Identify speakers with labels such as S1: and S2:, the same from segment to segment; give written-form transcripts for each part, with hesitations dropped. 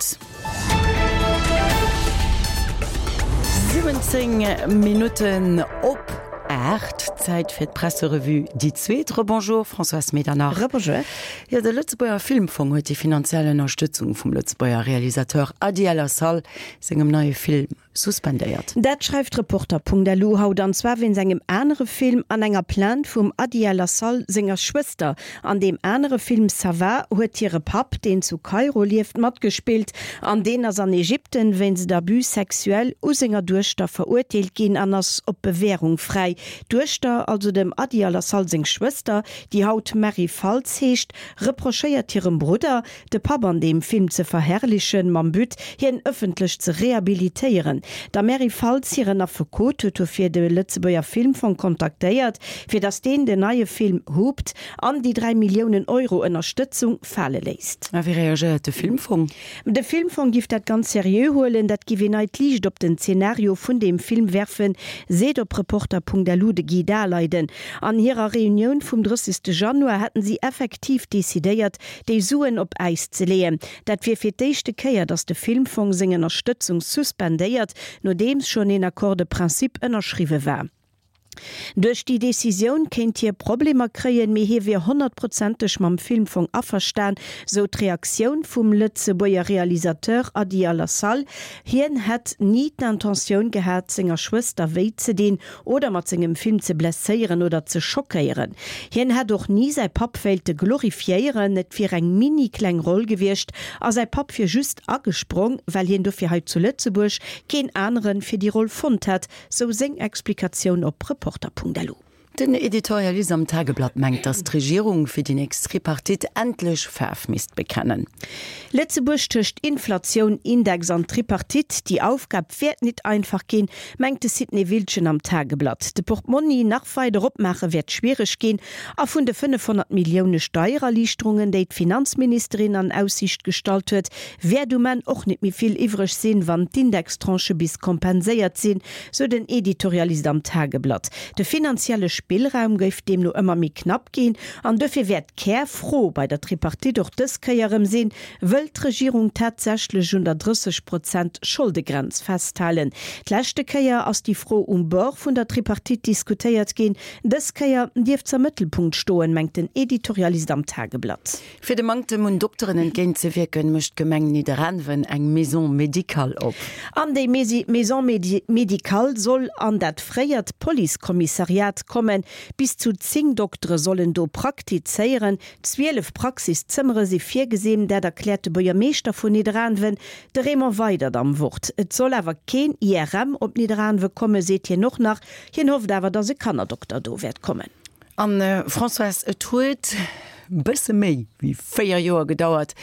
S1: Gutt. 17 Minutten op 8, Zäit fir d'Presserevue déi zweet. Rebonjour Françoise Medernach.
S2: Rebonjour.
S1: Jo, de Lëtzebuerger Filmfong huet déi finanziell Ënnerstëtzung vum Lëtzebuerger Realisateur Adi El Assal sengem neie Film suspendéiert.
S2: Dat schreift Reporter.lu haut, an zwar wéinst engem anere Film an enger Plainte vum Adi El Assal senger Schwëster. An deem anere Film Ça va huet hire Papp, deen zu Kairo lieft, matgespillt an deen ass an Ägypten wéinst Abus sexuel u senger Duechter verurteelt ginn an ass op Bewährung fräi. D'Duechter, also dem Adi Al Assal seng Schwëster, déi haut Mary Faltz heescht, reprochéiert hirem Brudder, de Papp an deem Film ze verherrlichen, mam But, hien ëffentlech ze rehabilitéieren. Der Mary Faltz hiren Affekot huet dofir de Lëtzebuerger Filmfong kontaktéiert, fir datt deen den neie Film Hooped an déi 3 Milliounen Euro Ënnerstëtzung fale léisst.
S1: A wéi reagéiert de Filmfong?
S2: De Filmfong giff dat ganz seriö huelen, dat giff een neit Liicht op den Zenario vun deem Film werfen, seet op Reporter.lu de Guy Daleiden. An hirer Reunioun vum 30. Januar hätten si effektiv decidéiert, déi Suen op Äis ze leeën. Dat wier fir d'éischte Kéier, datt de Filmfong seng Ënnerstëtzung suspendéiert, nodeems schonn een Accord de principe ënnerschriwwe war. Duerch déi Decisioun kéint hie Problemer kréien, mee hie wier honnertprozenteg mam Filmfong averstan, sou d'Reaktioun vum Lëtzebuerger Realisateur Adi Alassal. Hien hätt ni d'Intentioun gehat, senger Schwëster wéi ze dinn oder mat sengem Film ze blesséieren oder ze schockéieren. Hien hätt och ni säi Papp wéilte glorifiéieren, et wier eng mini kleng Roll gewiescht a säi Papp wier just agesprong, well hien dofir hei zu Lëtzebuerg keen anere fir déi Roll fonnt hätt, sou seng Explikatioun op Reporter.lu.
S1: Den Editorialist am Tageblatt mengt, datt d'Regierung fir déi nächst Tripartite endlech Faarf misst bekennen.
S2: Lëtzebuerg tëscht Inflatioun, Index an Tripartite, déi Aufgab wäert nit einfach ginn, mengt de Sidney Wildgen am Tageblatt. De Portmonni nach weider opmaache wäert schwiereg ginn a vun de 500 Millioune Steiererliichterungen, déi d'Finanzministerin an Aussiicht gestallt huet, wäert um Enn och nit méi vill iwwreg sinn, wann d'Indextranchë bis kompenséiert sinn, sou den Editorialist am Tageblatt. De finanzielle Spillraum géif deemno ëmmer méi knapp ginn an dofir wäert d'Kärfro bei der Tripartite och dës Kéier erëm sinn, Wëll d'Regierung tatsächlech un der 30 Prozent Scholdegrenz festhalen? D'leschte Kéier ass déi Fro um Bord vun der Tripartite diskutéiert ginn. Dës Kéier dierft s'am Mëttelpunkt stoen, mengt den Editorialist am Tageblatt.
S1: Fir dem Manktem un Dokteren entgéint ze wierken, mécht d'Gemeng Nidderaanwen eng Maison médicale op.
S2: An déi Maison médicale soll an dat fréiert Policekommissariat kommen. Bis zu 10 Doktere sollen do praktizéieren. 12 Praxiszëmmere si virgesinn, dat erkläert de Buergermeeschter vun Nidderaanwen, de Raymond Weydert am Wort. Et soll awer keen IRM op Nidderaanwe kommen, seet hien och nach. Hien hofft awer, datt e Kannerdokter do wäert kommen.
S1: An Françoise, et huet bësse méi wéi 4 Joer gedauert,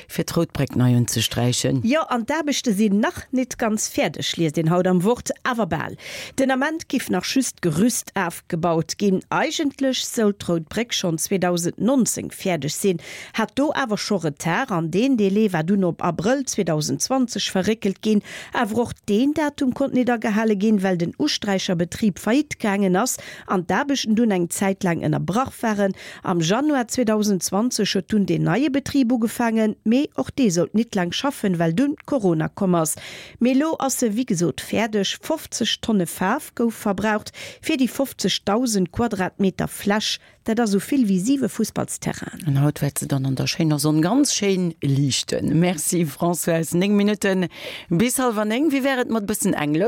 S1: fir d'Rout Bréck nei unzesträichen.
S2: Jo, an d'Aarbechte sinn nach nit ganz fäerdeg, liest een haut am Wort, awer bal. Den Ament giff nach just d'Gerüst afgebaut ginn. Eigentlech soult d'Rout Bréck schonn 2019 fäerdeg sinn, hat do awer scho Retard an deen Délai war dunn op Abrëll 2020 verréckelt ginn. Awer och deen Datum konnt nit agehale ginn, well den Usträicherbetrib faillite gaangen ass an d'Aarbechten dunn eng Zäit laang ënnerbrach waren. Am Januar 2020 huet dunn deen neie Betrib ugefaangen, mee och dee sollt nit laang schaffen, well dunn Corona komm ass. Mee elo ass se wéi gesot fäerdeg. 50 Tonne Faarf gouf verbraucht fir déi 50.000 Quadratmeter Fläch. Dat ass esou vill wéi siwe Fussballsterrainen.
S1: An haut wäert se dann an der schéiner Sonn ganz schéin liichten. Merci Françoise. 9 Minutten bis hallwer 9. Wéi wär et mat bëssen Englesch?